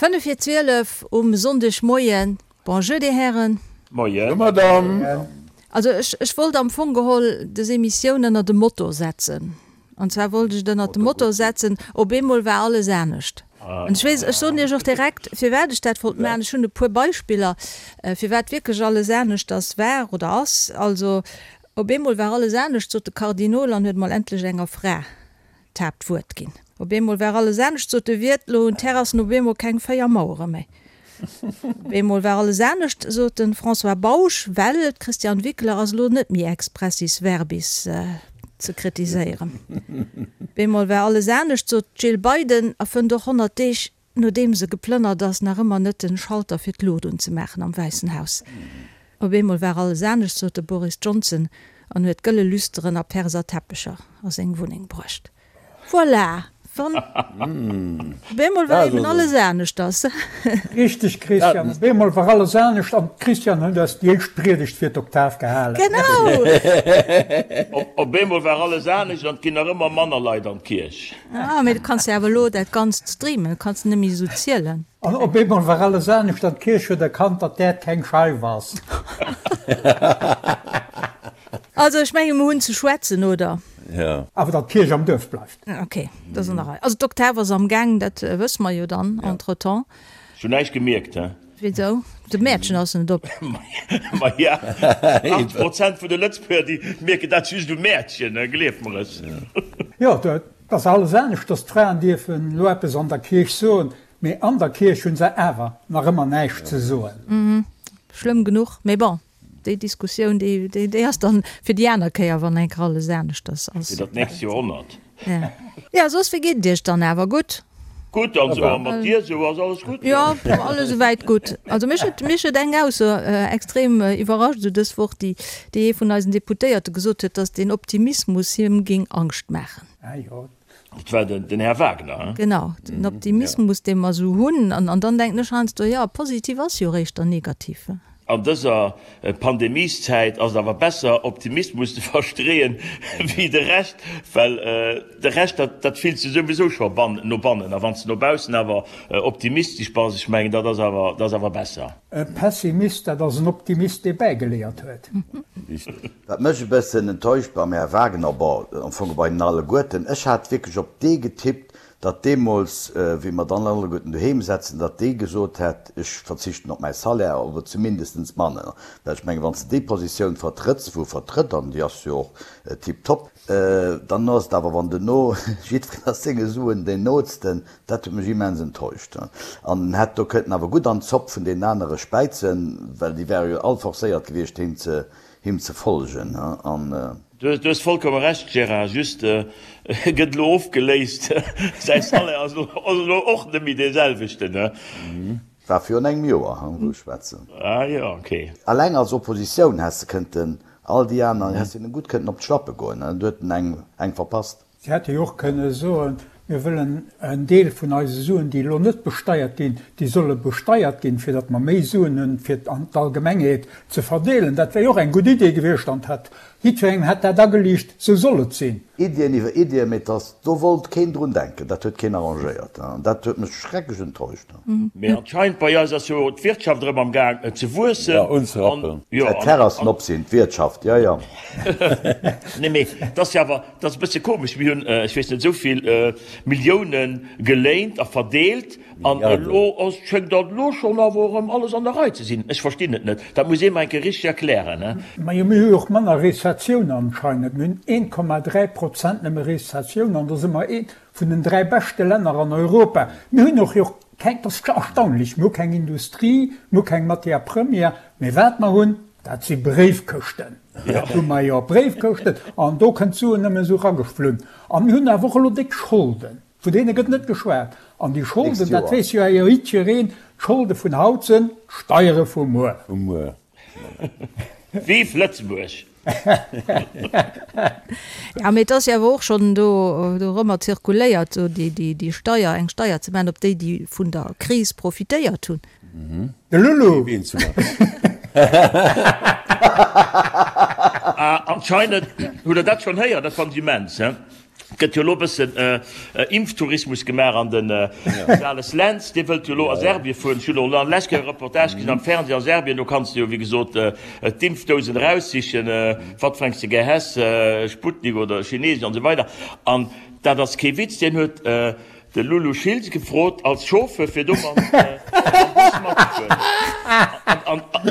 5 vir 12 um Sonndegmoien. Bonjour, Dir Hären. Moien. Bonjour, Madame. Also ech, ech wollt am Fong geholl des Emissioun ënner de Motto setzen. An zwar wollt ech et ënner de Motto setzen, Op eemol war alles anescht. An ech weess, ech soen Iech och direkt, firwat ech dat wollt maachen. Ech hunn e puer Beispiller, firwat wierklech alles aneschters war oder ass. Also, op eemol war alles anescht, sot de Kardinol an huet mol endlech enger Fra d'Haaptwuert ginn. Op eemol war alles anescht, sot de Wiert, lo hunn d'Terrassen op eemol keng 4 Mauere méi. Op eemol war alles anescht, sot de François Bausch, well d'Christiane Wickler ass elo net méi expressis verbis ze kritiséieren. Op eemol war alles anescht, sot d'Jill Biden a fënnt och 100 Deeg nodeem se geplënnert ass, nach ëmmer net den Schalter fir d'Luucht unzemaachen am Wäissen Haus. Op eemol war alles anescht, sot de Boris Johnson an huet gëlle Lüsteren a Perser Teppecher a seng Wunneng bruecht. Voilà! Wann op eemol war eben alles aneschters. Richteg Christian, op eemol war alles anescht an d'Christiane huet eis déi éischt Priedegt fir d'Oktav gehalen. Genau! Op eemol war alles anescht an et ginn nach ëmmer manner Leit an d'Kierch. Ah, mee du kanns jo awer elo dat Ganzt streamen, du kanns net méi esou zielen. An op eemol war alles anescht an d'Kierch huet erkannt, datt d'Äerd keng Scheif ass. Also ech menge mer hunn ze schwätzen, oder? Jo. Awer datt d'Kierch am Duerf bleift. Ok, dat ass an der Rei. Also d'Oktav ass am Gaang, dat wësse mer jo dann entretemps. Ech hunn näischt gemierkt, he. Wisou? De Mäertchen ass net op. Maja, 80 Prozent vun de Lëtzebuerger, déi mierken dat just um Mäertchen, gleef mer es. Jo, et ass alles anescht, dass d'Fraen dierfen elo eppes an der Kierch soen, mee an der Kierch hu se awer nach ëmmer näischt ze soen. Schlëmm genuch, mee bon, déi Diskussioun, déi ass dann fir déi aner Kéier, wann eng Kéier alles aneschters ass. Fir dat nächst Joerhonnert. Ja, soss, wéi geet et Iech dann awer? Gutt? Gutt, an sou, a mat dir sou, ass alles gutt? Jo, alles esouwäit gutt. Also mech huet, mech huet eng Ausso extrem iwwerrascht esou dës Woch, déi, déi ee vun eisen Deputéierte gesot huet, datt den Optimismus him géing Angscht maachen. Ah jo. Dat war den, den Här Wagner, hein? Genau, den Optimismus, dee mer esou hunn. An, an dann denken ech heiansdo, jo, positiv ass jo eréischt dann negativ. An dëser Pandemieszäit ass et awer besser, Optimismus ze verstreeën, wéi de Rescht, well de Rescht, dat, dat fills de souwisou scho ban, no bannen. A wann s de no baussen awer optimistesch bass, ech mengen, dat ass awer, dat ass awer besser. E Pessimist, dat ass en Optimist, dee bäigeléiert huet. Wat mech e bëssen enttäuscht beim Här Wagner, bon, am Fong bei hinnen alleguerten, ech hat wierklech op dee getippt, datt deemools, wéi mer dann alleguerten doheem setzen, datt dee gesot hätt, ech verzichten op mäi Salaire oder zumindestens manner. Well ech mengen, wann s de déi Positioun vertrëtts, wou e vertrëtt, an déi ass jo och tiptop, dann ass et awer, wann duerno jiddwereen ass senge Suen deen Nootsten, dat huet mech immens enttäuscht. An en hätt do kënnten awer gutt an d'Zopp vun deenen anere späizen, well déi wäre jo all forcéiert gewiescht, him ze him ze folgen an. Du hues vollkomme Recht Gérard, just e gëtt elo ofgeléist, säi Salaire ass elo och net méi dee selwechten. War virun engem Joer, wou ech schwätzen. Ah jo, ok. Alleng als Oppositioun häss de kënnten all déi aner, häss hinnen gutt kënnten op d'Schlappe goen, du huet en eng verpasst. Si hätte jo och kënne soen, Mir wëllen en Deel vun eise Suen, déi elo net besteiert ginn, déi solle besteiert ginn, fir datt mer méi Suen hunn, fir an d'Allgemengheet ze verdeelen. Dat wär jo och eng gutt Idee gewiescht an hätt jiddwerengem hätt dat ageliicht, esou soll et sinn. Iddien iwwer Iddien, mee dass do wollt keen drun denken, dat huet keen arrangéiert an dat huet mech schrecklech enttäuscht. Mee anscheinend bei eis ass jo d'Wirtschaft erëm am Gaang ze wuessen. Ja, unzerappen. Säit d'Terrassen op sinn, d'Wirtschaft, jo, jo. Nee, mee et ass jo awer, Et ass e bësse komesch, mir hunn, ech weess net, esou vill Millioune geléint a verdeelt an elo ass, schéngt dat elo schonn awer erëm alles an der Rei ze sinn. Ech verstinn et net. Dat muss ee mer eng Kéier richteg erklären. Majo, mir hu jo och manner Rezessioun anscheinend. Mir hunn 1,3 Prozent nëmme Rezessioun an do si mer eent vun den 3 beschte Länner an Europa. Mir hunn och jo keng, dat ass erstaunlech, mir hu keng Industrie, mir hu keng Matière première, mee wat mer hunn, Dat si Bréifkëschten. Dat hu mer jo, Bréifkëschten. An do kënnt d'Suen nëmmen esou erageflunn. A mir hunn awer och elo déck Scholden. Vun deene gëtt net geschwat. An déi Scholden, dat weess jo jiddwereen, d'Scholde vun haut sinn d'Steiere vu muer. Vu muer. Vive Lëtzebuerg! Ja, mee et ass jo awer och schonn do dorëmmer zirkuléiert, esou déi Steier, eng Steier ze maachen op déi, déi vun der Kris profitéiert hunn. De Lulu! Ah, anscheinend hutt Der dat schonn héieren, dat fannen ech immens, he? Gëtt jo elo bëssen Impftourismus gemaach an den Sales Lentz, dee wëllt jo elo a Serbien fueren. Ech hunn elo an lescht Kéier e Reportage gesinn am Fernseh a Serbien, do kanns de jo wéi gesot d'Impfdousen eraussichen, wat fir eng s de gär häss, Sputnik oder Chinesesch an esou weider. An dat ass kee Witz, deen huet De Lulu Schiltz gefrot als Chauffeur fir do mam Bus matzefueren.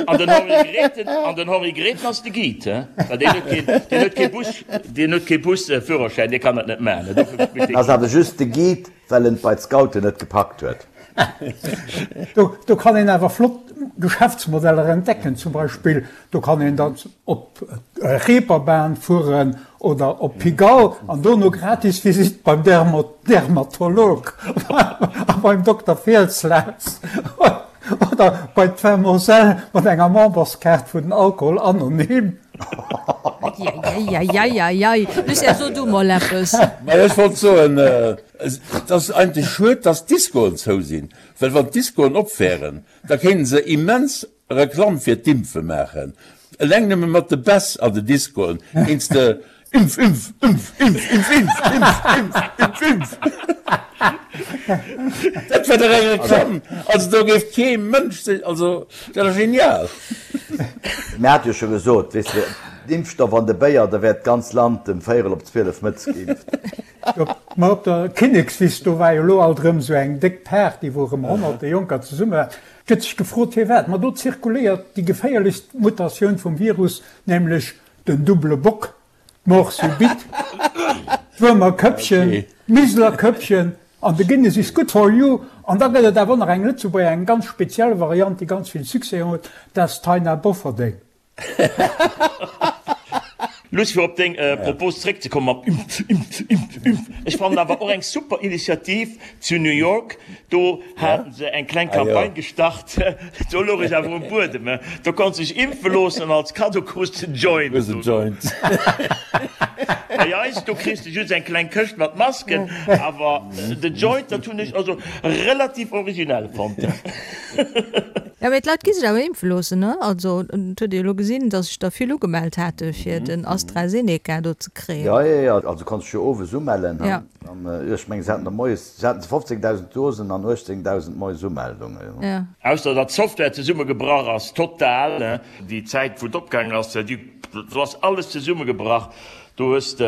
An den Henri Grethen, an den Henri Grethen ass de Guide, he? Well deen huet keen, deen huet kee Bus, deen huet kee Busführerschäin, dee kann dat net maachen, dofir spillt dee. Ass awer just de Guide, well en et bei d'Scouten net gepackt huet. Do kann een awer flott Geschäftsmodeller entdecken, zum Beispill do kann een dann op Reeperbahn fueren oder op Pigalle an dono gratis Visitt beim Dermatolog a beim Dokter Fielslaus oder bei d'Vermoselle mat enger Memberskaart vun den Alkohol Anonym. Eieieiei, Lucien, so du mol eppes. Majo, ech wollt soen, et ass eigentlech schued, dass d'Discoen zou sinn, well wann d'Discoen op wären, da kéinten se immens Reklamm fir d'Impfe maachen. Eleng nëmme mat de Bäss an de Discoen kéints de Impf, Impf, Impf, Impf, Impf, Impf, Impf, Impf, Impf, Impf. Dat wär dach eng Reklamm! Also do géif kee Mënsch sech, also dat ass genial! Mir hate jo scho gesot, weess de, d'Impfstoff an de Béier, da wär d'ganz Land ëm véierel op 12 mëttes geimpft. Ma op der Kinnekswiss, do war jo elo alt erëm esou eng déck Party, wou erëm honnerte Jonker zesumme waren. Gëtt sech gefrot firwat. Ma do zirkuléiert déi geféierlechst Mutatioun vum Virus, nämlech den double Bock, d'Mort subite, d'Wuermer Këppchen, d'Miseler Këppchen an de Guinness is good for you. An da gëtt et awer och nach eng Lëtzebuerger, eng ganz speziell Variant, déi ganz vill Succès huet, dat ass d'Taina Bofferding. Luss, fir op deng Propos zréckzekommen mam Impf, Impf, Impf, Impf, ech fannen awer och eng super Initiativ zu New York, do haten se eng kleng Campagne gestart, do louch ech awer um Buedem, do konns de dech impfe loossen an als Kaddo krus de en Joint. Bei eis, do kriss de just eng kleng Këscht mat Masken, awer de Joint, dat hunn ech also relativ originell fonnt. Jo, mee d'Leit gi sech awer impfe loossen, ne? Also, et huet ee jo elo gesinn, datt sech der vill ugemellt hate fir den AstraZeneca do ze kréien. Jo, jo, jo, also konns dech jo owes umellen, ne? An ech mengen, se haten der moies, se haten 15.000 Dosen an 18.000 moies Umeldungen. Jo. Ausser datt d'Software zesummegebrach ass, total, ne? Déi Zäit, wou et opgaangen ass, déi, do ass alles zesummegebrach. Do hues de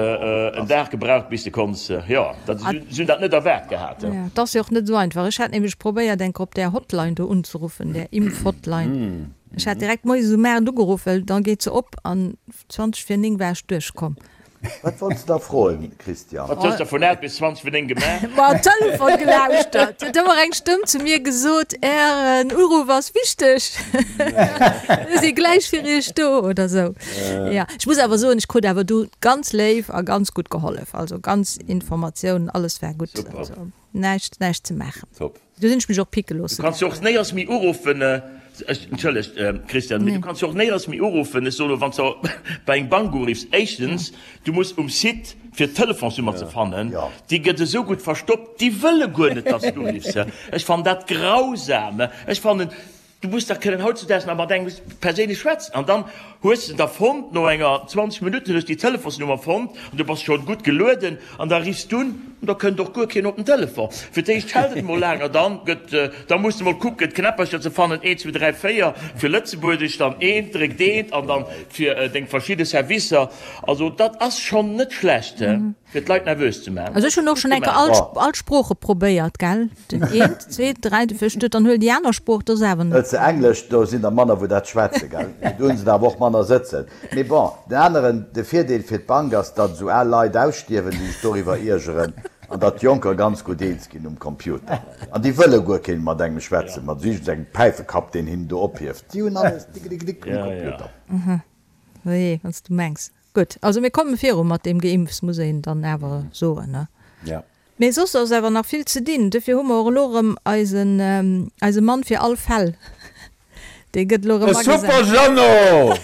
en Dag gebraucht bis de konns, jo, dat, si hunn dat net erwaart gehat. Jo, et ass jo och net esou einfach. Ech hat nämlech probéiert eng Kéier op där Hotline do unzeruffen, där Impfhotline. Ech hat direkt moies um 8 ugeruff, well da geet se op an 20 vir 9 war ech duerchkomm. Wat wollts de da froen, Christian? Wat hues de vun 8 bis 20 vir 9 gemaach? Ma Telefon gelauschtert. Huet ëmmer eng Stëmm zu mir gesot, Ären Uruff ass wichteg. Mir si gläich fir Iech do oder esou. Ja, ech muss awer soen, ech krut awer du ganz léif a ganz gutt gehollef. Also ganz Informatiounen, alles war gutt. Super. Also näischt, näischt ze maachen. Top. Du sinn ech mech och picke loosse Du kanns jo och néiers méi uruffen, ech, entschëllegt Christian, mee du kanns jo och néiers méi uruffen, ech soen elo, wann s de bei eng Bank uriffs, éischtens, du muss um Site fir d'Telefonsnummer ze fannen, déi gëtt esou gutt verstoppt, déi wëlle guer net, dass du uriffs. Ech fannen dat grausam. Ech fannen, Du muss dach kënnen hautzudaags nach mat engem perséinlech schwätzen. An dann hues de der fonnt, no enger 20 Minutten hues déi Telefonsnummer fonnt an du bass schonn gutt gelueden an da riffs du un an da kënnt och guer keen op den Telefon. Fir d'éischt schellt et mol laang an dann gëtt, da muss de mol kucken d'Knäppercher ze fannen, eent, zwou, dräi, véier fir Lëtzebuergesch, dann eent, dréckt eent an dann fir deng verschidde Servicer. Also dat ass schonn net schlecht. Fir d'Leit nervös ze maachen. Also ech hunn och schonn eng Kéier all, all Sprooche probéiert, gell? Den eent, zweet, dräit, viert, dann huel déi aner Sprooch, dat ass awer net. Hëls de Englesch, do sinn der manner wou dat schwätzen, gell? Mee do hunn se der awer och manner sëtzen. Mee bon, den aneren, de Virdeel fir d'Bank ass, datt esou al Leit ausstierwen, déi sech doriwwer iergeren, an datt d'Jonker ganz gutt eens ginn um Computer. An déi wëlle guer keen mat engem schwätzen, mat esou iergendengem Päifekapp, deen hinnen do ophieft. Déi hunn alles dickedickedik um Computer. Oje, wann s du mengs. Gutt, also mir komme viru mat deem Geimpfs, muss een dann awer soen, ne? Ja. Mee soss ass awer nach vill ze dinn. Dofir hu mer och elo erëm eisen, eise Mann fir all Fäll, dee gëtt elo De erëm agesat. Super Jeannot!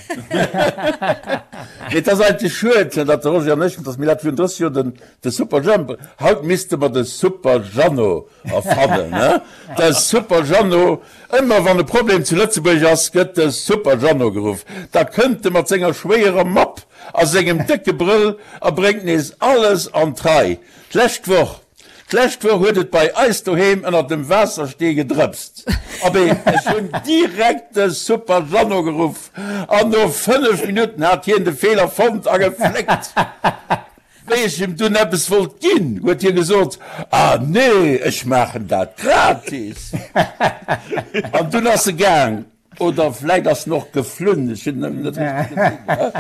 Mee et ass eigentlech schued, datt de Roger an ech, datt mir dat virun 30 Joer den, de Super Jhemp, haut misste mer de Super Jeannot erfannen, ne? De Super Jeannot, Ëmmer wann e Problem zu Lëtzebuerg ass, gëtt de Super Jeannot geruff. Da kënnt e mat senger schwéierer Mapp. a sengem décke Brëll a bréngt nees alles an d'Rei. D'lescht Woch, d'lescht Woch huet et bei eis doheem ënner dem Waasserstee gedrëpst. Abee, ech hunn direkt de Super Jeannot geruff an no 5 Minutten hat hien de Feeler fonnt a gefléckt. Wéi ech him dunn eppes wollt ginn, huet hie gesot, Ah nee, ech maachen dat gratis. An dunn ass e gaang. Oder vläit ass en och geflunn, ech hunn en net richteg gesinn.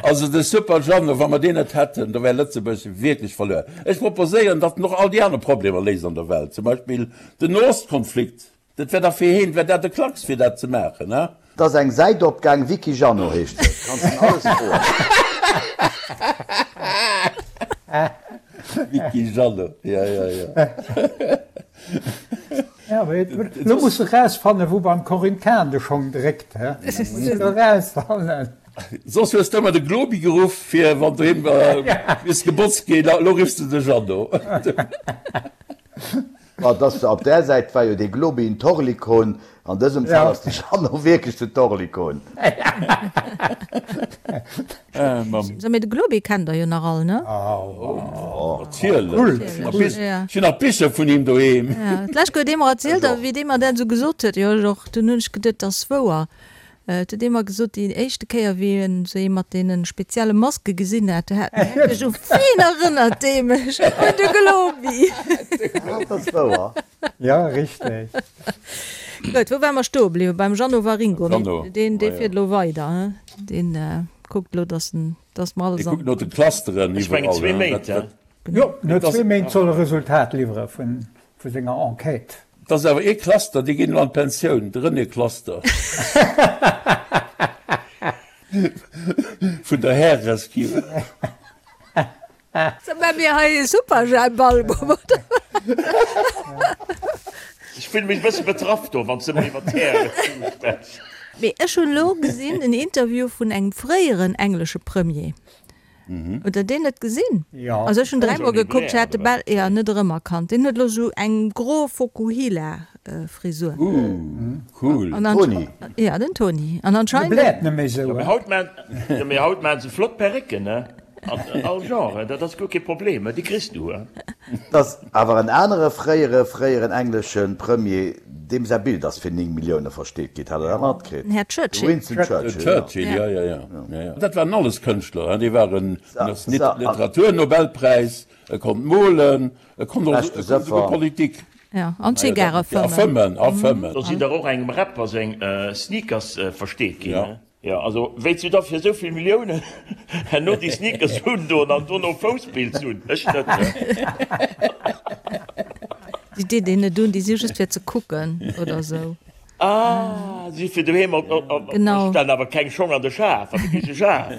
Also de Super Jeannot, wa mer deen net hätten, da wär Lëtzebuerg wierklech verluer. Ech proposéieren, datt en och all déi aner Problemer léist an der Welt, zum Beispill den Noostkonflikt. Dat wär dach fir heen, wär dat e Klacks fir dat ze maachen, he? Et ass eng Säit opgaang, Wiki Jeannot heescht se, kanns en alles froen. Wiki Jeannot, ja, ja, ja. Ja, mee lo muss de rausfannen, wou beim Corinne Cahen de Schong dréckt, he? Muss de lo rausfannen. Soss hues de ëmmer de Globi geruff, fir wann doheem misst gebotzt ginn, lo riffs de de Jeannot. Ma et ass, op där Säit war jo dee Globi en Torlikon, an dësem Fall ass de Jeannot wierklech den Torlikon. So, mee de Globi kennt der jo nach all, ne? Natierlech! Ech hunn nach Bicher vun him doheem. D'lescht huet ee mer erzielt, a wéi dee mer dat esou gesot huet, jo ech och, dunn hunn ech geduet, dat ass wouer. Et huet ee mer gesot, déi éischte Kéier, wéi en esou ee mat deene spezielle Maske gesinn hat, do hat en wierklech, U ween erënnert dee mech? Un de Globi! Dat ass wouer. Ja, richteg. Gutt, wou ware mer stoe bliwwen? Beim Jeannot Waringo. Mee deen, dee fiert elo weider, he? Deen kuckt elo, dass en, dass mer alles an. Dee kuckt no de Clusteren iwwerall. Ech mengen zwee Méint, he? Jo, no zwee Méint soll e Resultat liwwere vun Vu senger Enquête. Et ass awer ee Cluster, déi ginn elo an d'Pensioun, de René Cluster vun der Härerescue. So maa mir hei e Superjhemp-Album, oder? Ech fillen mech e bësse betraff do, wann s de ëmmer iwwer d'Härerescue schwätz. Mee ech hunn elo gesinn en Interview vun engem fréieren englesche Premier, Hutt der deen net gesinn? Jo. Also ech hunn dräimol gekuckt, ech hat de bal jo net erëmerkannt. Deen huet elo sou eng gro Fokuhila-Frisur. Ooh, cool. An Toni. Ja, den Toni. An De anscheinend. bläert net méi sou, Jo, mee haut maan, jo, mee haut maan se flott Perrécken, ne? An all Genre, dat ass guer kee Problem, déi kriss du, he? Et ass awer en anere fréiere fréieren englesche Premier, deem säi Bild ass fir 9 Millioune versteet ginn. Hat Der dat matkritt? Den Här De Churchill. Winston Churchill, jo. Churchill, jo, jo, jo, jo. Dat waren alles Kënschtler, hein. Dee war en Literaturnobelpräis, e konnt molen, e konnt och esouguer Politik. Jo, an Zigare fëmmen. A fëmmen, a fëmmen. Do sinn der och engem Rapper seng Sneakers versteet ginn, hein. Jo, also wéits du da fir esou vill Milliounen herno déi Sneakers undoen an dono Fousspilz hunn? Ech net. Déi deet een net un, déi si just fir ze kucken oder esou. Ah, si fir doheem op, op, Genau. Ech stellen awer keng Schong an de Schaf, an de Kicheschaf.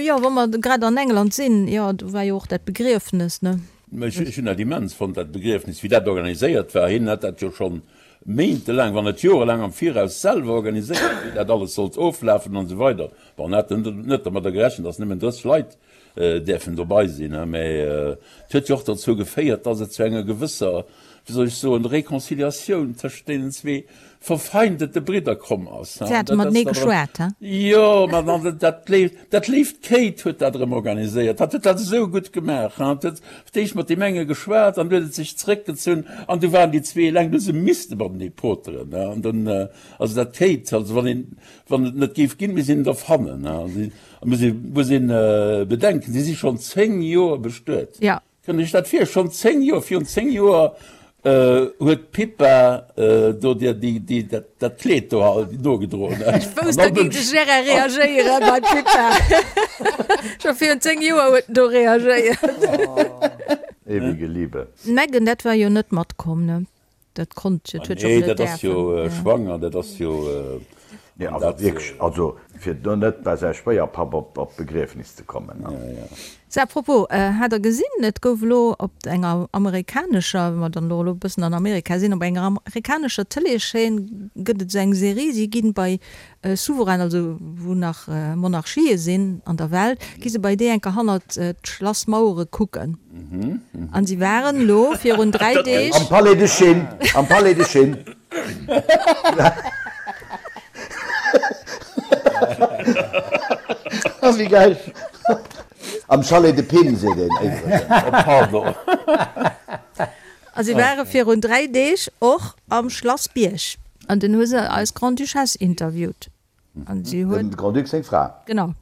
Jo, wa mer grad an England sinn, jo, do war jo och dat Begriefnes, ne? Ech hunn dat immens fonnt, dat Begriefnes, wéi dat organiséiert war. Hien hat dat jo schonn méintelaang, wann net jorelaang am Viraus selwer organiséiert, wéi dat alles sollt oflafen an esou weider. Bon, en hat net dermadder gerechent, datt nëmmen 30 Leit däerfen dobei sinn, mä et huet jo och dozou geféiert, datt et zu enger gewësser, wéi soll ech soen, Réconciliatioun tëschent deenen zwee verfeindete Bridder komm ass. Si hate matenee geschwat, he? Jo, ma dann, dat léift, dat léift Kate huet dat erëm organiséiert. Hat huet dat esou gutt gemaach, he? Hat huet fir d'éischt mat deem enge geschwat an du huet et sech zréckgezunn an du waren déi zwee eleng, du hu se misste matenee poteren, he? An dunn, also dat Kate, also wann een, wann et net géif ginn, misst een et erfannen, he? An si, muss ee, muss een bedenken, si si schonn 10 Joer bestuet. Ja. Kënnt Iech dat vir? Schonn 10 Joer, virun 10 Joer huet d'Pippa do dir déi, dat Kleed do nogedroen. Ech wousst, da géing de Gérard reagéieren bei d'Pippa. Scho virun 10 Joer huet en do reagéiert. Ewige Liebe. D'Meghan, dat war jo net matkomm, ne? Dat konnt jo, dat huet jo och Nee, net dat ass däerfen. jo schwanger, dat ass jo. Nee, also wierklech, also fir do net bei säi Schwéierpapp op d'Begriefnis ze kommen. Sou, à propos, hat der gesinn, et gouf elo op enger amerikanescher, wa mer dann elo e bëssen an Amerika sinn, op enger amerikanescher Tëleeschaîne gëtt et esou eng Serie, si ginn bei Souverainen, also wou nach Monarchië sinn an der Welt, gi se bei déi enker hannert d'Schlassmauere kucken. An si waren elo virun 3 Deeg. Am Palais de Chine, am Palais de Chine. Wéi gäil. Am Chalet de Pin seet een iwwregens. Oh pardon. A si ware virun 3 Deeg och am Schlass Bierg. An dunn hu se eis Grande-Duchesse interviewt. An si huet. Dem Grand-Duc seng Fra. Genau.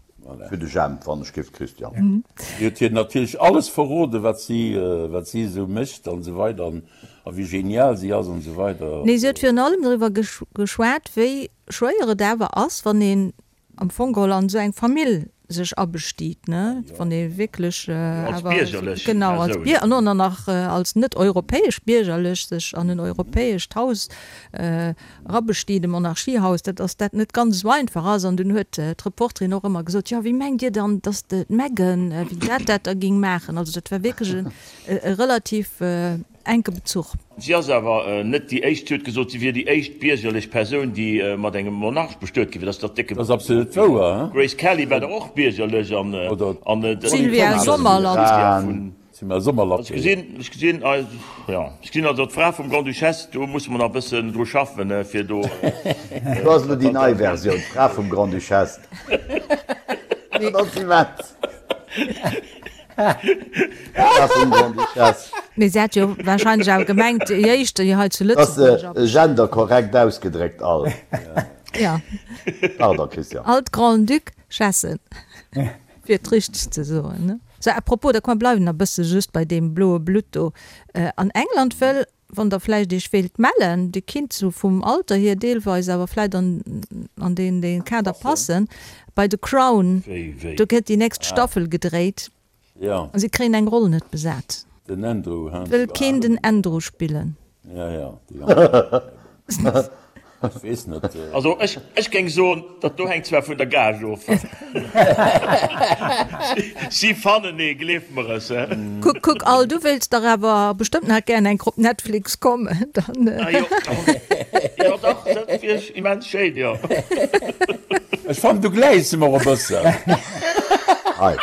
Fir de Jemp, wann ech giff, Christian. Si huet hir natierlech alles verroden, wat si, wat si esou mécht an esou weider an a wéi genial si ass an esou weider. Nee, si huet virun allem doriwwer geschwat, wéi schwéier et awer ass, wann een am Fong geholl an esou eng Famill sech abestiit, ne, wann ee wierklech awer, genau, als Bier, an och nach als net europäesch biergerlech sech an en europäescht Haus erabestiit, e Monarchiehaus, dat ass dat net ganz esou einfach ass. An dunn huet d'Reporterin och ëmmer gesot, jo, wéi mengt Dir dann, datt d'Meghan, wéi dat dat da géing maachen? Also dat war wierklech e relativ Enke Bezuch. Si ass awer net déi éischt. Si huet gesot, si wier déi éischt biergerlech Persoun, déi mat engem Monarch bestuet gi wier. Dat ass dach décke. Dat ass absolut wouer, he? D'Grace Kelly war dach och biergerlech an d'Sylvia Sommerlath. D'Sylvia Sommerlath. Ech gesinn, ech gesinn, jo, ech gesinn also d'Fra vum Grand-Duchesse, do musse mer nach e bëssen dru schaffen, fir do. Do ass elo déi nei Versioun, d'Fra vum Grand-Duchesse. Dat ass immens. Mee se hat jo wahrscheinlech awer gemengt, déi éischt, déi hei zu Lëtzebuerg. Dat ass genderkorrekt ausgedréckt, all. Ja. Pardon, Christian. All d'Grand-Duchessen, fir et richteg ze soen, ne? Sou, à propos, da komm, bleiwen nach e bësse just bei deem bloe Blutt do. An England wëll Wann der vläicht iech wéilt mellen, dir kinnt sou vum Alter hier deelweis awer vläicht an an deen deen Kader passen, bei The Crown, do gëtt déi nächst Staffel gedréit a si kréien eng Roll net besat. Den Andrew, hein? Wëll keen den Andrew spillen? Ja, ja, déi Andrew. Ech weess net. Also ech, ech géing soen, dat do hänkt zwar vun der Gage of. Si fannen ee, gleef mer es. Kuck, kuck, Al, du wéilts dach awer bestëmmt nach gären eng Kéier op Netflix kommen, dann. Ah jo, jo dach, dat wier immens schéin, jo. Ech fannen, du gläichs em och e bëssen. Hei.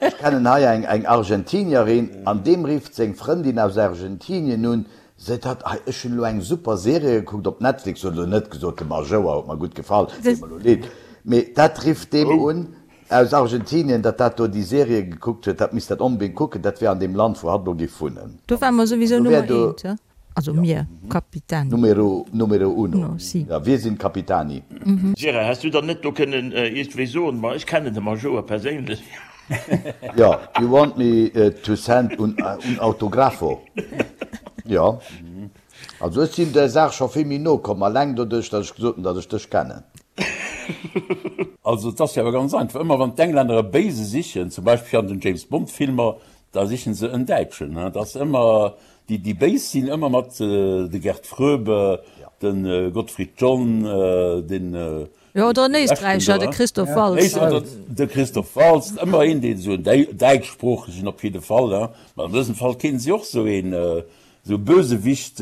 Ech kennen hei eng, eng Argentinierin, an deem rifft seng Frëndin aus Argentinien un, Seet hatt, hei ech hunn elo eng super Serie gekuckt op Netflix, huet elo net gesot, de Majouer huet mer gutt gefall, deet mer elo leed, mee dat rifft deem un aus Argentinien, datt dat do déi Serie gekuckt huet, dat misst dat onbedéngt kucken, dat wär an deem Land wou hatt elo géif wunnen. Do ware mer souwisou Nummer eent, he? Also mir, Capitani. Numero, numero uno, ja, wir sind Capitani. Gérard, häss du dann net do kënnen iergendwéi soen, ma ech kennen de Majouer perséinlech? Jo, you want me to send un un autografo? Jo. Also ech sinn der Saach scho vill méi no komm, alleng doduerch, datt ech gesot hunn, datt ech dech kennen. Also et ass jo awer ganz einfach, ëmmer wann d'Englänner e Béise sichen, zum Beispill an den James Bond Filmer, da sichen se en Däitschen. Dat ass ëmmer, déi déi Béis sinn ëmmer mat de Gert Fröbe, de Gottfried John, den Jo, oder en Éisträicher, de Christoph Waltz. De Christoph Waltz, ëmmer een, deen esou en Däitschsproochegen op jidde Fall, hein. Mä an dësem Fall kéinte si och esou een, esou e Bösewicht,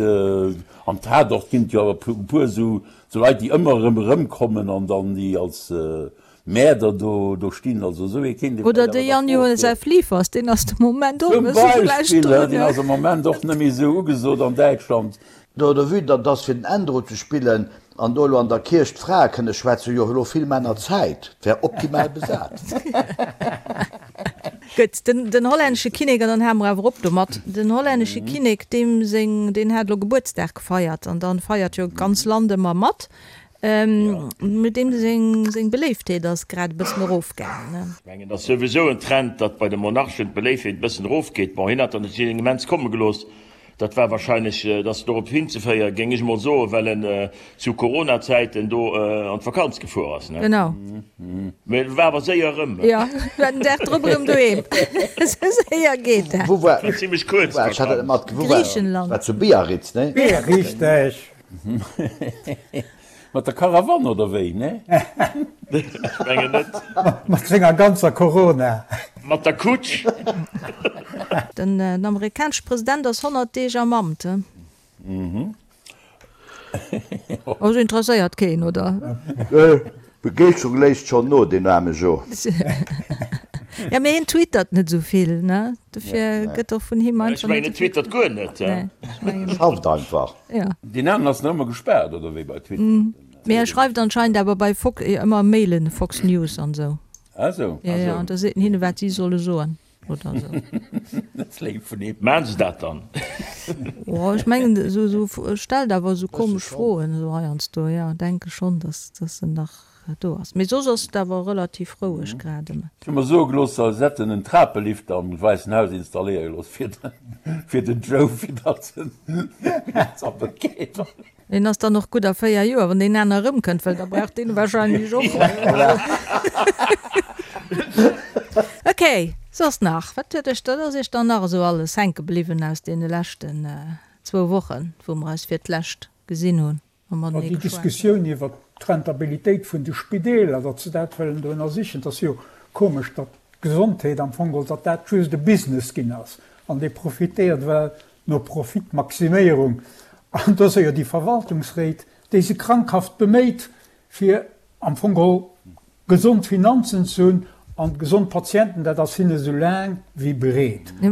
am Tatort ginn et jo awer e puer esou Leit, déi ëmmer erëm erëmkommen an dann déi als Mäerder do, do stinn. Also esou ee kéint ee Oder vläicht de awer nach Jan Josef Liefers, deen ass de Moment och e Zum bësse vläicht Beispill, hein, deen ass am Moment och net méi esou ugesot an Däitschland. Do de Vue datt ass fir den Ändro ze spillen an do elo an der Kierch d'Frae kënne schwätzen, hu jo elo vill Männer Zäit, 't wär optimal besat. Gutt, den den hollännesche Kinnek, an dann hale mer awer op domat, den hollännesche Kinnek, deem seng, deen hat elo Gebuertsdag gefeiert an dann feiert jo d'ganz Land ëmmer mat, mee deem seng seng Beléiftheet ass grad e bëssen erofgaangen, ne? Ech mengen, et ass souwisou en Trend, datt bei de Monarchen d'Beléiftheet e bëssen erofgeet. Bon, hien hat dann et immens komme gelooss, Dat war wahrscheinlech, dat ass dorop hinzeféieren, géing ech mol soen, well en zu Corona-Zäiten do an d'Vakanz gefuer ass, ne? Genau. Mee e war awer séier erëm. Jo, war den Dag drop erëm doheem. Esou séier geet dat. Wou war, War zimmlech kuerz, wou war, ech hat dat net matge-, wou war, Griichenland. war zu Biarritz, ne? Richteg. Mat der Karawann oder wéi, ne? Ech mengen net. Mat senger ganzer Corona. Mat der Kutsch. Den amerikanesche President ass 100 Deeg am Amt, he? Also interesséiert keen, oder? D'Begeeschterung léisst schonn no, deen aarme Jo. Ja, mee hien twittert net esou vill, ne? Dofir gëtt och vun him Ech einfach mengen, net en twittert guer net. Nee, ech mengen net. Schafft einfach. Ja. Deen aneren ass nach ëmmer gespaart, oder wéi bei Twitter? Mee e schreift anscheinend awer bei Fox ëmmer Mailen, Fox News an esou. Ah sou. Jo, jo, an da seet en hinne wat si solle soen oder esou. Dat ass léif vun him. Maachen se dat dann? Oh, ech mengen, esou, esou, stellt awer esou komesch Froen esou heiansdo, jo, denke schonn, dass, dass en nach do ass. Mee soss ass et awer relativ roueg grad ëm. Ech hu mer soe gelooss, se hätten en Trapelifter am Wäissen Haus installéiere gelooss fir den, fir den Joe, fir datt en zappelt geet. Deen ass dann och gutt a 4 Joer, wann deen aner erëmkënnt, well da brauch deen wahrscheinlech och. Ok, soss nach? Wat huet iech, wat ass iech dann nach esou alles hänke bliwwen aus deene leschten zwou Wochen, wou mer eis fir d'lescht gesinn hunn a matenee Déi geschwat hunn? Diskussioun iwwert d'Rentabilitéit vun de Spideeler, datt se dat wëllen do ënnersichen, dat ass jo komesch, datt d'Gesondheet am Fong geholl, datt dat just e Business ginn ass an dee profitéiert well no Profitmaximéierung, an do si jo déi Verwaltungsréit, déi se krankhaft beméit, fir am Fong geholl gesond Finanzen ze hunn an gesond Patienten, dat ass hinne sou laang wéi breet. A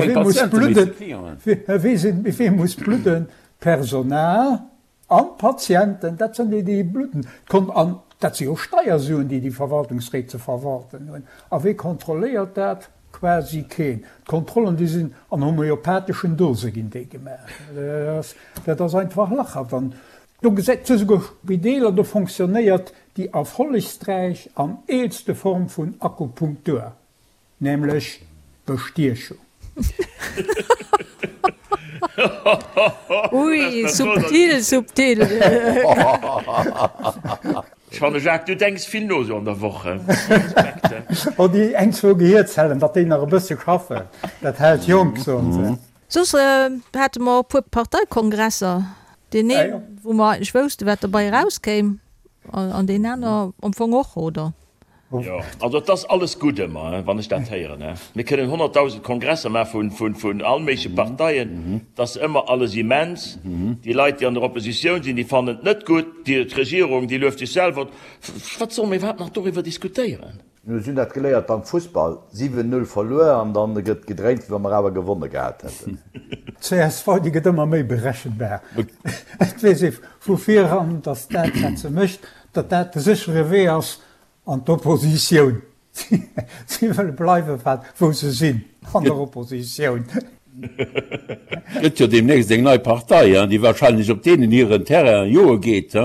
wee muss bludden? Wee muss bludden? D'Personal. An d'Patienten, dat sinn déi, déi bludden. D'Kon an dat si jo Steiersuen, déi déi Verwaltungsréit ze verwalten hunn. A wee kontrolléiert dat? Quasi keen. D'Kontrollen, déi sinn an homeopatheschen Dose ginn déi gemaach. Dat ass einfach lachhaft. An do gesäit se souguer Spideeler, do fonctionnéiert déi erfollegsträich an eelste Form vun Akupunktur. Nämlech Bestiechung. Ui, subtil, subtil. Ech fanne Jacques, du denks vill no sou an der Woch, he? Respekt, he? Oh, déi eng, zwou Gehierzellen, datt déi nach e bësse schaffen, dat hält jonk, soen se. Soss hate mer och e puer Parteikongresser, deen een, wou mer eigentlech wousste wat derbei erauskéim, an deen aner am Fong och, oder? Jo, also et ass alles gutt ëmmer, wann ech dat héieren. Mir kënnen 100.000 Kongresser maache vun all méigleche Parteien, et ass ëmmer alles immens. Déi Leit, déi an der Oppositioun sinn, déi fannen et net gutt, d'Regierung, déi lueft sech selwer. Wat solle mir iwwerhaapt nach doriwwer diskutéieren? Mir hunn dat geléiert beim Fussball, 7, 0 verluer an dann gëtt gedréint, wéi wa mer awer gewonne gehat hätten. D'CSV, déi gëtt ëmmer méi berechenbar. Et weess ee vu viran, datt dat, wat se mécht, datt dat de séchere Wee ass an d'Oppositioun. Si wëlle bleiwe wat wou se sinn, an der Oppositioun. Gëtt jo deemnächst eng nei Partei, déi wahrscheinlech op deenen hiren Terrain joe geet,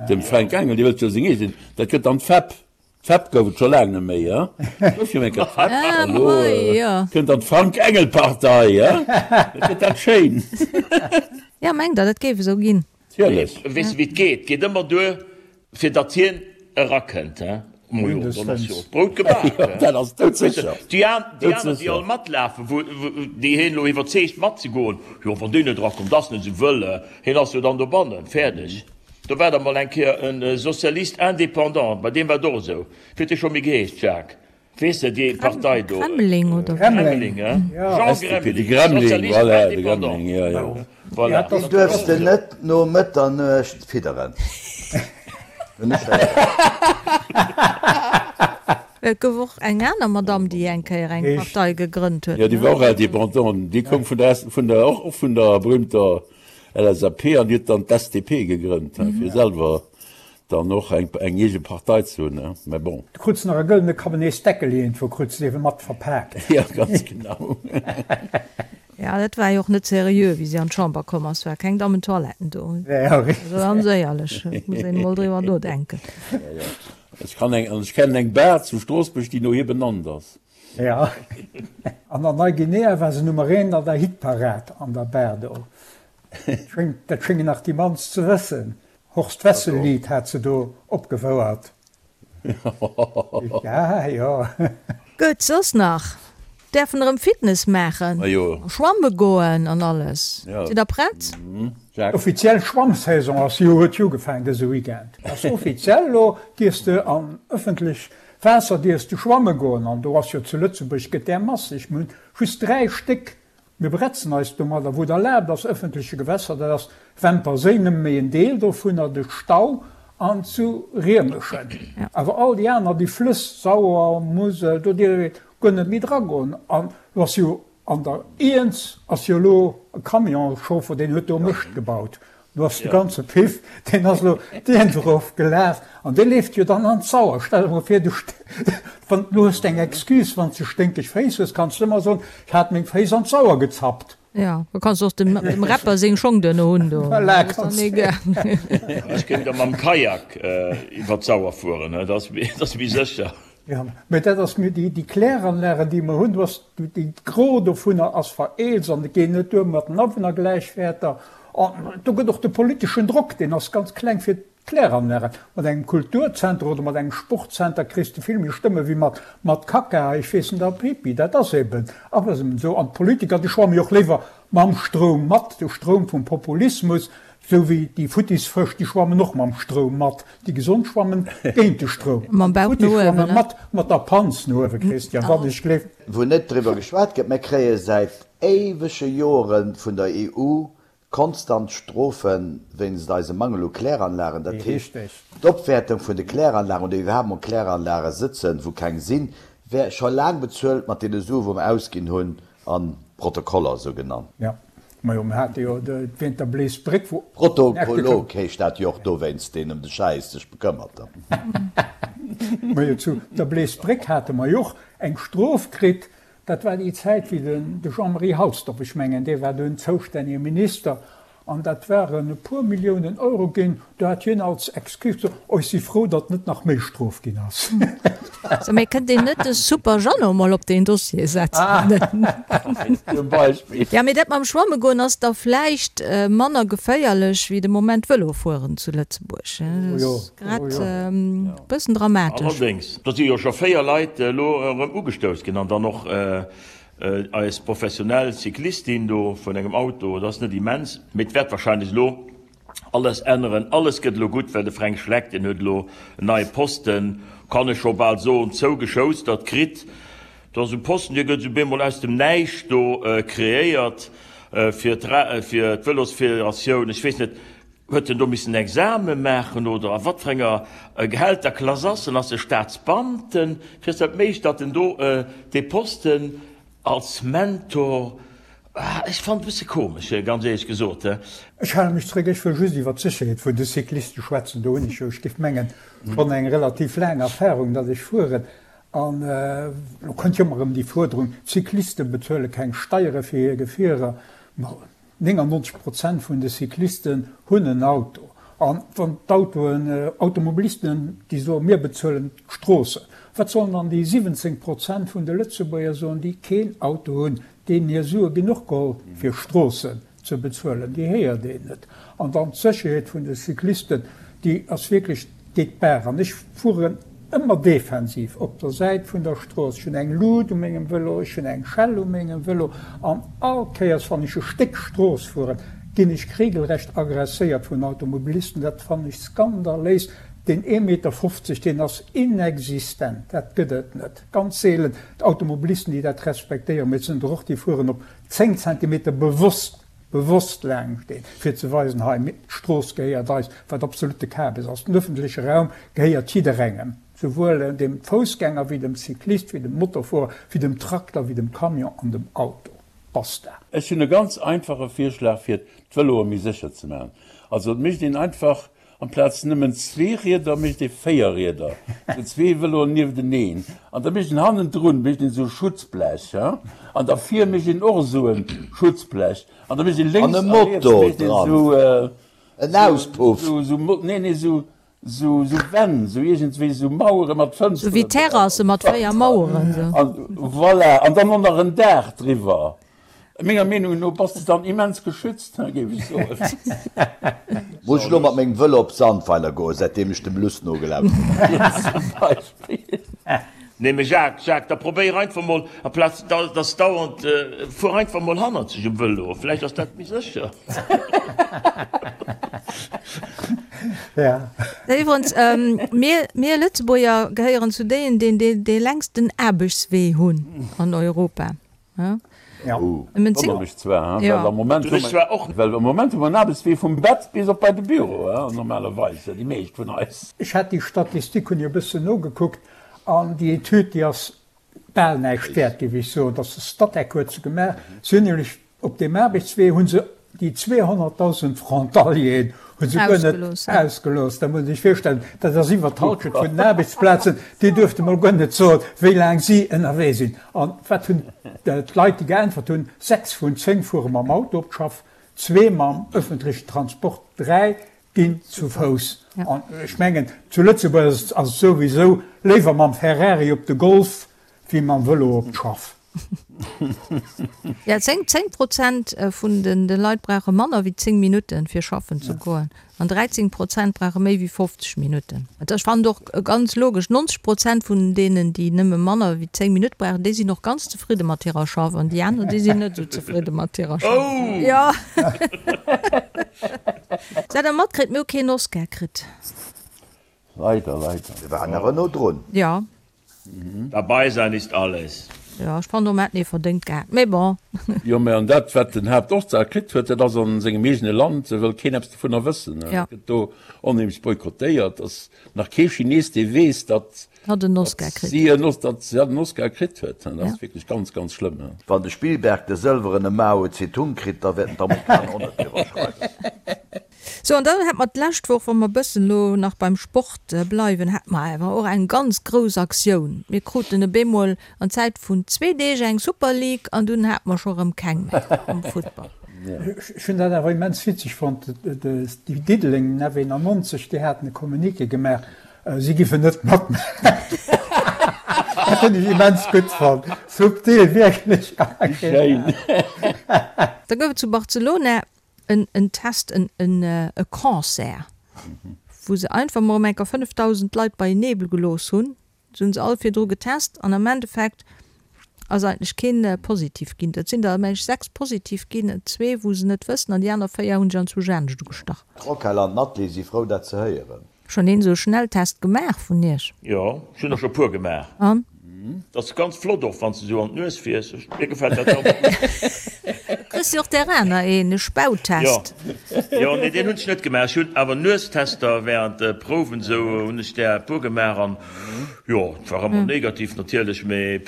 dem Fränk Engel, dee wëllt jo seng eegen, dat gëtt dann d'FEP. D'FEP gouf et scho laang net méi, et gouf jo eng Kéier d'FEP, an elo kënnt dann d'Frank-Engel-Partei, dat gëtt dat schéin. Jo, mengt Der, dat géif esou ginn? Natierlech. Weess de wéi et geet? Geet ëmmer duer fir datt hien erakënnt, he? Majo, dann ass jo och d'Brout gebak, he? Dat ass doudsécher. Déi aner, déi all matlafen, wou déi hien elo iwwerzeegt matzegoen, jo wann deen net erakommt, ass net esou wëll, hien ass jo dann dobannen, fäerdeg. Do war da mol eng Kéier e Socialiste indépendant, bei deem war et och esou. Wéi huet dee scho méi geheescht, Jacques? Weess de, déi Partei do. Gremling oder wéi? Gremling, he? Jean De Gremling, Gremling, Socialiste voilà, de indépendant. Gremling, jo, jo. Voilà. Deen duerfs de net no Mëtternuecht fidderen. Hunn ech héieren. Et gouf och eng aner Madamm, déi eng Kéier eng Partei gegrënnt huet, Jo, déi ne? war och indépendant. Déi koum vun der, vun der, och vun der berühmter LSAP an déi huet dann d'SDP gegrënnt, he, fir selwer Dann och eng eng eege Partei ze hunn, ne? Mä bon. Du krutz nach e gëllene Kabeneesdeckel iergendwou, krutz de ewe mat verpaakt. Jo, ganz genau. Ja, dat war jo och net seriö, wéi si an d'Chamber komm ass, war keng Dammentoiletten do. Ja, richtig. Also ganz éierlech, et muss een emol driwwer nodenken. Ja, ja. Ech kann eng, an ech kennen eng Bar zu Stroossbuerg, déi no hir benannt ass. Ja. An an Neuguinea war se Nummer eent an der Hitparad an der Bar do. Dat schéngen nach déi mannst ze wëssen. Horst Wessel Lied hat se do opgefouert. Ja jo. Gutt, soss nach? Däerfen erëm Fitness maachen, schwamme goen an alles. Sidd der prett? D'offiziell Schwammsaison ass jo huet jo ugefaangen dëse Weekend. Ass offiziell elo dierfs de an ëffentlech Waasser dierfs de schwamme goen an do ass jo zu Lëtzebuerg gëtt där masseg. Mir hunn just 3 Stéck Mir bretzen eis domadder, wou et erlaabt ass, ëffentleche Gewässer, dat ass Wämper Séi, nëmme méi en Deel dovunner, de Stau an zu Riemeschen. Awer all déi aner, déi Flëss, Sauer, Musel, do dierf ee guer net méi dragoen. An elo ass jo an der Iernz ass jo elo e Camionschauffer, deen huet do Mëscht gebaut. Do ass de ganze Piff, deen ass elo deen erof gelaf an dee leeft jo dann an d'Sauer. Stell der mol vir, du, wann, du hues eng Excuse, wann s de sténkeg Féiss hues, kanns de ëmmer soen, ech hat meng Féiss an d'Sauer gezappt. Jo, da kanns de och dem, dem Rapper seng Schong duerno hunn do. Voilà, kanns de. Ech géing da mam Kajak iwwer d'Sauer fueren, dat ass, dat ass méi sécher. Jo, mä dat ass mir déi, déi Kläranlagen, déi mer hunn, do ass déi Gros dovunner ass vereelzt an et geet net duer mat den Awunnergläichwäerter. An do gëtt och de politeschen Drock, deen ass ganz kleng fir d'Kläranlagen. Mat engem Kulturzenter oder mat engem Sportzenter kriss de vill méi Stëmme wéi mat, mat Kacka, ech weess net, a Pipi. Dat ass eben, ass eben esou. An d'Politiker, déi schwamme jo och léiwer mam Stroum mat, de Stroum vum Populismus, Sou wéi déi futtis Fësch, déi schwammen och mam Stroum mat. Déi gesond schwammen géint de Stroum. Mam Bauch no uewen, Déi futtis schwamme mat, mat der Panz no uewen, Christian, wann ech gleef. Wou net driwwer geschwat gëtt, Mir kréie säit éiwege Jore vun der EU konstant Strofe wéinst eisem Mangel u Kläranlagen. Dat heescht, d'Opwäertung vun de Kläranlagen oder iwwerhaapt mol Kläranlage sëtzen, wou keng sinn, wär scho laang bezuelt mat deene Sue wou mer ausginn hunn an Protokoller, sou genannt. Jo, majo, mir hate jo wéint der Bleesbréck, wou. Protokollog heescht dat jo och dowéinst, deen ëm de Schäiss sech bekëmmert. Majo, zu der Bleesbréck hate mer jo och eng Strof kritt. Dat war déi Zäit, wéi den de Jean-Marie Halsdorf, ech mengen, dee war dunn zoustännege Minister, An dat waren e puer Milliounen Euro ginn. Do hat hien als Excuse gesot, Oh, ech si frou, datt net nach méi Strof ginn ass. So, mee kënnt een net de Super Jeannot mol op deen Dossier setzen? Zum Beispill. Jo, mee dat mam Schwamme goen ass da vläicht manner geféierlech wéi de Moment Vëlo fueren zu Lëtzebuerg. Dat ass grad e bëssen dramatesch. Allerdéngs, do si jo scho 4 Leit elo erëm ugestouss ginn an dann och Eis professionell Cyclistin do vun engem Auto, dat ass net immens, mee et wäert wahrscheinlech elo alles änneren. Alles gëtt elo gutt, well de Fränk Schleck, deen huet elo en neie Posten, kann ech scho bal soen, zougeschoustert kritt. Dat ass e Posten, dee gëtt esou bemol aus dem Näischt do kreéiert fir d'Vëlosfederatioun. Ech weess net, Huet en do missen Exame maachen oder a wat fir enger Gehälterklass ass en? Ass e Staatsbeamten? Wéi ass dat méiglech, datt en do dee Posten als Mentor, ech fannen et e bësse komesch, ganz éierlech gesot. Ech hale mech zréck, ech wëll just iwwer d'Sécherheet vun de Cycliste schwätzen. Do hunn ech jo, ech géif mengen, schonn eng relativ laang Erfahrung, datt ech fueren. An elo kënnt jo ëmmer erëm déi Fuerderung, d'Cycliste bezuele keng Steiere fir hir Gefierer. 99 Prozent vun de Cyclisten hunn en Auto. An wann d'Autoen, Automobilisten, déi soen, mir bezuelen d'Stroossen, wat sollen dann déi 17 Prozent vun de Lëtzebuerger soen, déi keen Auto hunn, deenen hir Sue ginn och geholl fir Stroossen ze bezuelen? Déi héiert een net. An dann d'Sécherheet vun de Cyclisten, déi ass wierklech Geet d'Baach an ech fueren ëmmer defensiv op der Säit vun der Strooss. Ech hunn eng Lut u mengem Vëlo, ech hunn eng Schell u mengem Vëlo an all Kéiers wann ech e Stéck Strooss fueren, ginn ech regelrecht aggresséiert vun Automobilisten. Dat fannen ech skandaléis. Deen ee Meter 50, deen ass inexistent, dat gëtt et net. Ganz seelen d'Automobilisten, déi dat respektéieren, mee et sinn der och, déi fueren op 10 Zentimeter bewosst bewosst laang steen, fir ze weisen, hei, d'Strooss gehéiert eis, wat absolutte Kabes ass. Den öffentleche Raum gehéiert jidderengem, souwuel dem Foussgänger wéi dem Cyclist, wéi dem Motorfuerer, wéi dem Trakter, wéi dem Camion an dem Auto. Basta. Ech hunn e ganz einfache Virschlag fir d'Vëloe méi sécher ze maachen. Also et mécht een einfach Amplaz nëmmen zwee Rieder mécht ee 4 Rieder, sou zwee Vëloen niefteneen an da mécht een hannendrun mécht een esou Schutzblech an da vir mécht een och esou e Schutzblech an da mécht een lénks a riets mécht een esou en Auspuff, esou nee nee esou esou esou Wänn, esou iergendwéi esou Mauere mat Fënsteren Sou wéi Terrasse mat 4 Maueren esou. An voilà, an dann och nach en Daach driwwer. Menger Meenung no bass de dann immens geschützt, géif ech soen. Muss ech elo mat mengem Vëlo op Sandweiler goen, säitdeem ech dem Luss nogelauschtert hunn? Zum Beispill. Nee mee Jacques, Jacques, da probéier einfach mol, amplaz dass dauernd, fuer einfach mol hannerzeg um Vëlo, vläicht ass dat méi sécher. Ja. Iwwerens, mir, mir Lëtzebuerger gehéieren zu déien, deen dee längsten Aarbechtswee hunn an Europa. Ja. Wonnert mech zwar, well am Moment hu mer, well am Moment hu mer en Aarbechtswee vum Bett bis op bei de Büro, normalerweis, déi meescht vun eis. Ech hat déi Statistik, hunn ech e bëssen nogekuckt, an déi Etüd, déi ass bal näischt wäert, géif ech soen. Dass de Statec huet se gemaach. Si hunn nämlech op deem Aarbechtswee hu se. Déi 200.000 Frontalieren hu se guer net ausgelooss. Da muss ee sech virstellen, dat ass iwwer d'Halschent vun den Aarbechtsplazen. Déi duerfte mol guer net soen, wéi laang si ënnerwee sinn. An wat hunn d'Leit, déi geäntwert hunn? Sechs vun 10 fuere mam Auto op d'Schaff, zwee mam ëffentlechen Transport, dräi ginn zu Fouss. An ech mengen, zu Lëtzebuerg ass et souwisou léiwer mam Ferrari op de Golf wéi mam Vëlo op d'Schaff. Ja, 10, 10 Prozent vun den de Leit brauche manner wéi 10 Minutten, fir schaffen ze goen, an 13 Prozent brauche méi wéi 50 Minutten. Ech fannen och ganz logesch, 90 Prozent vun deenen, déi nëmme manner wéi 10 Minutte brauchen, déi sinn och ganz zefridde mat hirer Schaff, an déi aner, déi sinn net esou zefridde mat hirer Schaff. Oh! Jo. Sat Der matkritt, mir hu keen Oscar kritt. Leider, leider. Mir waren awer no drun. Jo. Dabei sein ist alles. Jo, ech fannen och, mer hätten ee verdéngt gehat, mee bon. Jo, mä an dat, wat den Haaptorsar kritt huet, dat ass a sengem eegene Land, wëll keen eppes dovunner wëssen. Dat gëtt do onheemlech boykottéiert. Ass nach kee Chines, dee weess, datt Hatt en Oscar kritt si en datt si hatt en Oscar kritt huet. Dat ass wierklech ganz, ganz schlëmm. Wann de Spielberg de sëlwerene Mao Zedong kritt, da wäerten d'Amerikaner och net driwwer schreiwen. Sou, an dann hätt mer d'lescht Woch, wa mer e bëssen elo nach beim Sport bleiwen, hate mer awer och eng ganz grouss Aktioun. Mir kruten op eemol an Zäit vun zwee Deeg eng Super League an dunn hate mer scho rëm keng méi am Futtball. Ech hunn dat awer immens witzeg fonnt, déi Diddeleng, den F91, déi haten e Communiqué gemaach, si giffen net matmaachen. Dat hunn ech immens gutt fonnt, subtil, wierklech. Schéin. Da gouf et zu Barcelona en en Test, en en e Concert, wou se einfach mol ëm enker 5.000 Leit beienee gelooss hunn. Se hunn se all virdru getest an am Endeffekt ass eigentlech keen positiv ginn. Et sinn der, meng ech, 6 positiv ginn, zwee wou se net wëssen an déi aner 4 hunn sech anzwousch anescht ugestach. D'Roquel an d'Nathalie si frou dat ze héieren. Schon een sou Schnelltest gemaach vun iech? Jo, ech hunn der scho puer gemaach. An? Dat ass ganz flott och wanns de sou an d'Nues fiers. Mir gefält dat ganz gutt. Kriss jo och där aner een, e Spautest. Jo, jo, nee deen hunn ech net gemaach. Ech hunn awer Nuestester während de Prouwen sou hunn ech där e puer gemaach an jo, et war ëmmer negativ natierlech, mee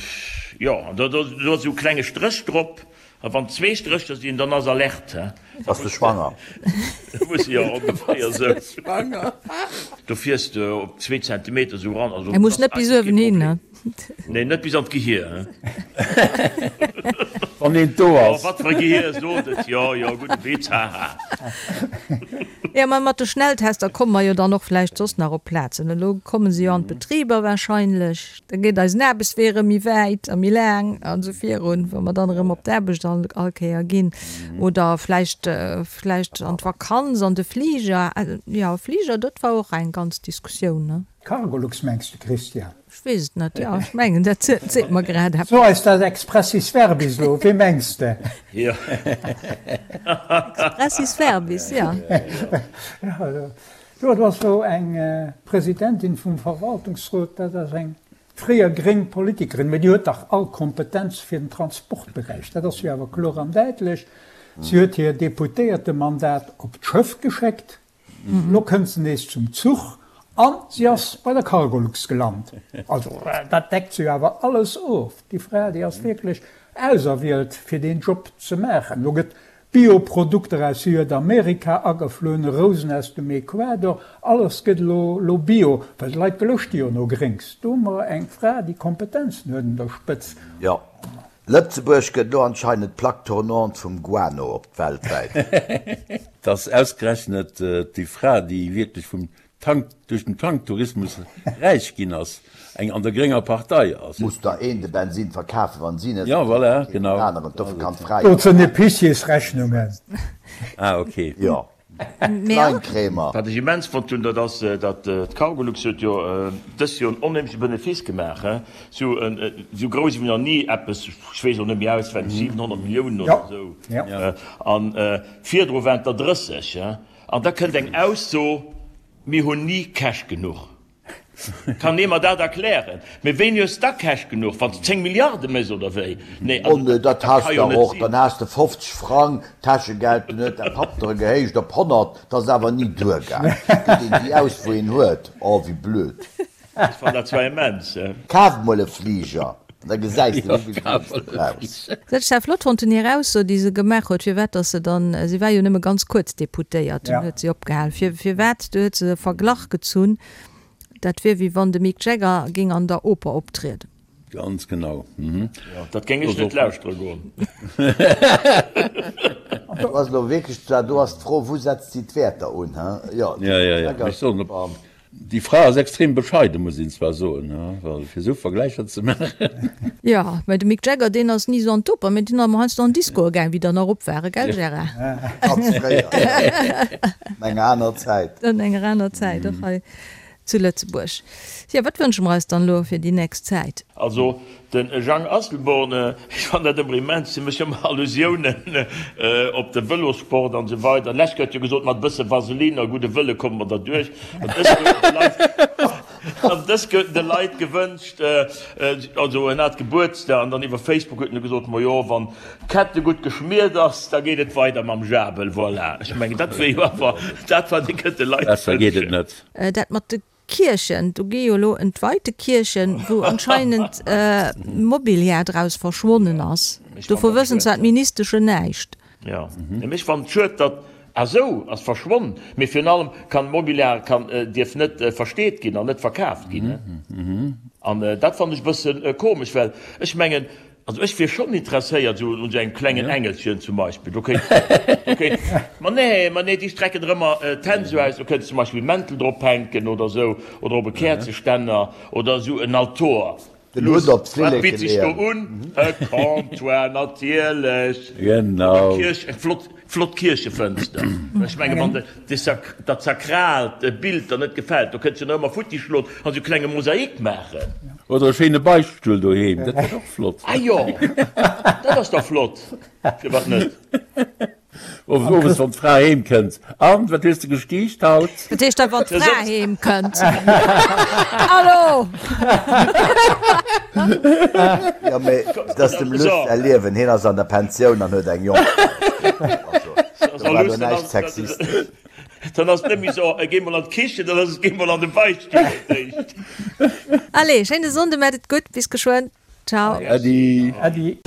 jo, an do do ass esou e klenge Stréch drop. A wann zwee Strécher sinn, dann ass Alerte, he? Bass de schwanger? Muss jo ongeféier sou. Schwanger? Do fiers de op zwee Zentimeter sou ran. Also, E muss net bis uewen hin, ne? Nee, net bis an d'Gehier, he? Wann eent do ass. Oh, wat fir e Gehier, sot et. Jo, jo, gudde Witz, haha. Jo, mä mat de Schnelltester komme mer jo dann och vläicht soss nach op Plazen. Elo komme se jo an d'Betriber wahrscheinlech. Da geet eisen Aarbechtswee erëm méi wäit a méi laang an esou virun, wa mer dann erëm op d'Aarbecht all, all Kéier ginn. Oder vläicht, vläicht an d'Vakanz, an de Fliger. Jo, Fliger, dat war och eng ganz Diskussioun, ne? Cargolux mengs de, Christian? Ech weess et net, jo, ech mengen, dat seet mer grad eppes. So eis dat expressis verbis elo, wee mengs de? Jo. Expressis verbis, jo. Jo, do ass elo eng Presidentin vum Verwaltungsrot, dat ass eng fréier gréng Politikerin, mä déi huet dach all Kompetenz fir den Transportberäich, dat ass jo awer kloer an däitlech. Si huet hir Deputéiertemandat op d'Schëff geschéckt, elo kënnt se nees zum Zuch a si ass bei der Cargolux gelant. Also dat deckt se jo awer alles of. Déi Fra, déi ass wierklech auserwielt fir deen Job ze maachen. Elo gëtt Bio-Produkter aus Südamerika agefloen, Rousen aus dem Ecuador, alles gëtt elo elo bio, well d'Leit geloscht jo no Gréngs. Do hu mer eng Fra, déi Kompetenzen huet un der Spëtz. Jo, Lëtzebuerg gëtt elo anscheinend d'Plaque tournante vum Guano op weltwäit. Dass ausgerechnet déi Fra, déi wierklech vum Tank, duerch den Tanktourismus räich ginn ass, eng an der grénger Partei ass. Muss der een de Bensin verkafen, wann si net Ja, voilà, genau. den aneren, dofir kann d'Fra jo. Dozou Épiciersrechnungen. Ah, ok. Jo, Kleinkremer. Wat ech immens fonnt hunn, dat ass, datt d'Cargolux huet jo dëst Joer en onheemleche Benefice gemaach, he, sou sou grouss ewéi nach ni eppes, ech weess elo net méi auswenneg, 700 Milliounen oder esou, an virdru waren et der 30, he. An da kënnt eng Ausso, Mir hunn ni Cash genuch. Kann ee mer dat erklären? Mee wéini hues da Cash genuch? Wann s de 10 Milliarde méchs oder wéi? Nee, Oh also nee, dat dat ka has jo der net och. sinn. Dann has de 50 Frang Täschegeld, dunn huet däi Papp der e gehéicht op 100, 't ass awer ni duergaang. Gëtt een déi aus, wou een huet. Oh, wéi blöd. Ech fannen dat zwar immens. Kaf mol e Fliger. An da gesäis de, wéi vill Wunns de brauchs. Dat ech dat flott fonnt hunn, hir Ausso, déi se gemaach huet, firwat datt se dann, si war jo nëmme ganz kuerz Deputéiert, dunn huet si opgehal, fir, firwat, du huet se e Verglach gezunn, dat wier wéi wann de Mick Jagger géing an der Oper optrieden. Ganz genau. Jo, dat géing ech net lauschtere goen. Do ass elo wierklech, do ass d'Fro, wou setzt si d'Wäerter un, he? Jo, de Mick Jagger. Déi Fra ass extrem bescheiden, muss een zwar soen, well fir esou Vergläicher ze maachen. Jo, mä de Mick Jagger, deen ass ni esou an d'Oper, mä deen ass emmer heiansdo an d'Discoe gaang, wéi der nach op ware, gell Gérard? Ganz fréier, jo. An enger aner Zäit. An enger aner Zäit, och hei zu Lëtzebuerg. Jo, wat wënsche mer eis dann elo fir déi nächst Zäit? Also Den Jang Asselborn, Ech fannen dat ëmmer immens, si mécht ëmmer Allusiounen op de Vëlossport an esou weider. Lech gëtt jo gesot, mat e bësse Vaseline a gudde Wëlle komme mer derduerch. An dës gëtt de Leit, an dës gëtt de Leit gewënscht, also en hat Gebuertsdag an dann iwwer Facebook huet en du gesot, Majo, wann d'Kette gutt geschmiert ass, da geet et weider mam Jabel. Voilà, ech mengen, dat wier jo awer dat, wat ee kënnt de Leit Besser geet et wënschen. net. Dat mat de Kierchen, do gi jo elo entweite Kierchen, wou anscheinend Mobiliar draus verschwonnen ass. Dovu wëssen zwar d'Ministeschen näischt. Jo, mee ech fannen et schued, datt, ah sou, ass verschwonn, mee virun allem kann Mobiliar kann, dierf net versteet ginn an net verkaaft ginn. An dat fannen ech e bësse komesch, well ech mengen, Also ech wier schonn interesséiert esou un esou engem klengen Engelchen zum Beispill. Do kéint, do kéint, ma nee, ma nee, déi strecken der ëmmer d'Hänn esou aus, do kéints zum Beispill Mäntel drop hänken oder esou, oder op e Käerzeständer oder esou en Altor. Den Hutt op Wat d'Flilleke bitt sech do leeën. un? E Comptoir natierlech. Genau. Oder Kierch, eng flott, flott Kierchefënster. Ech menge wann de, de Sak, dat sakraalt Bild der net gefält, do kënns du nach ëmmer futti schloen an esou klenge Mosaik maachen. Oder e schéine Beichtstull doheem, dat wär och flott. Ah jo, dat ass da flott, firwat net? Owes wann d'Fra heem kënnt, An, wat hues de gestiicht haut? Dat heescht da wann d'Fra heem kënnt. Hallo! Jo, mee dat ass dem Luss säi Liewen, hien ass an der Pensioun an huet eng Jongfra. Also, do war do näischt sexistesch. Dann ass et net méi sou, géi mol an d'Kichen, dann ass et, géi mol an de Beichtstull fir d'éischt. Allez, schéine Sonnde, maacht et gutt, bis geschwënn, ciao. Äddi. Äddi.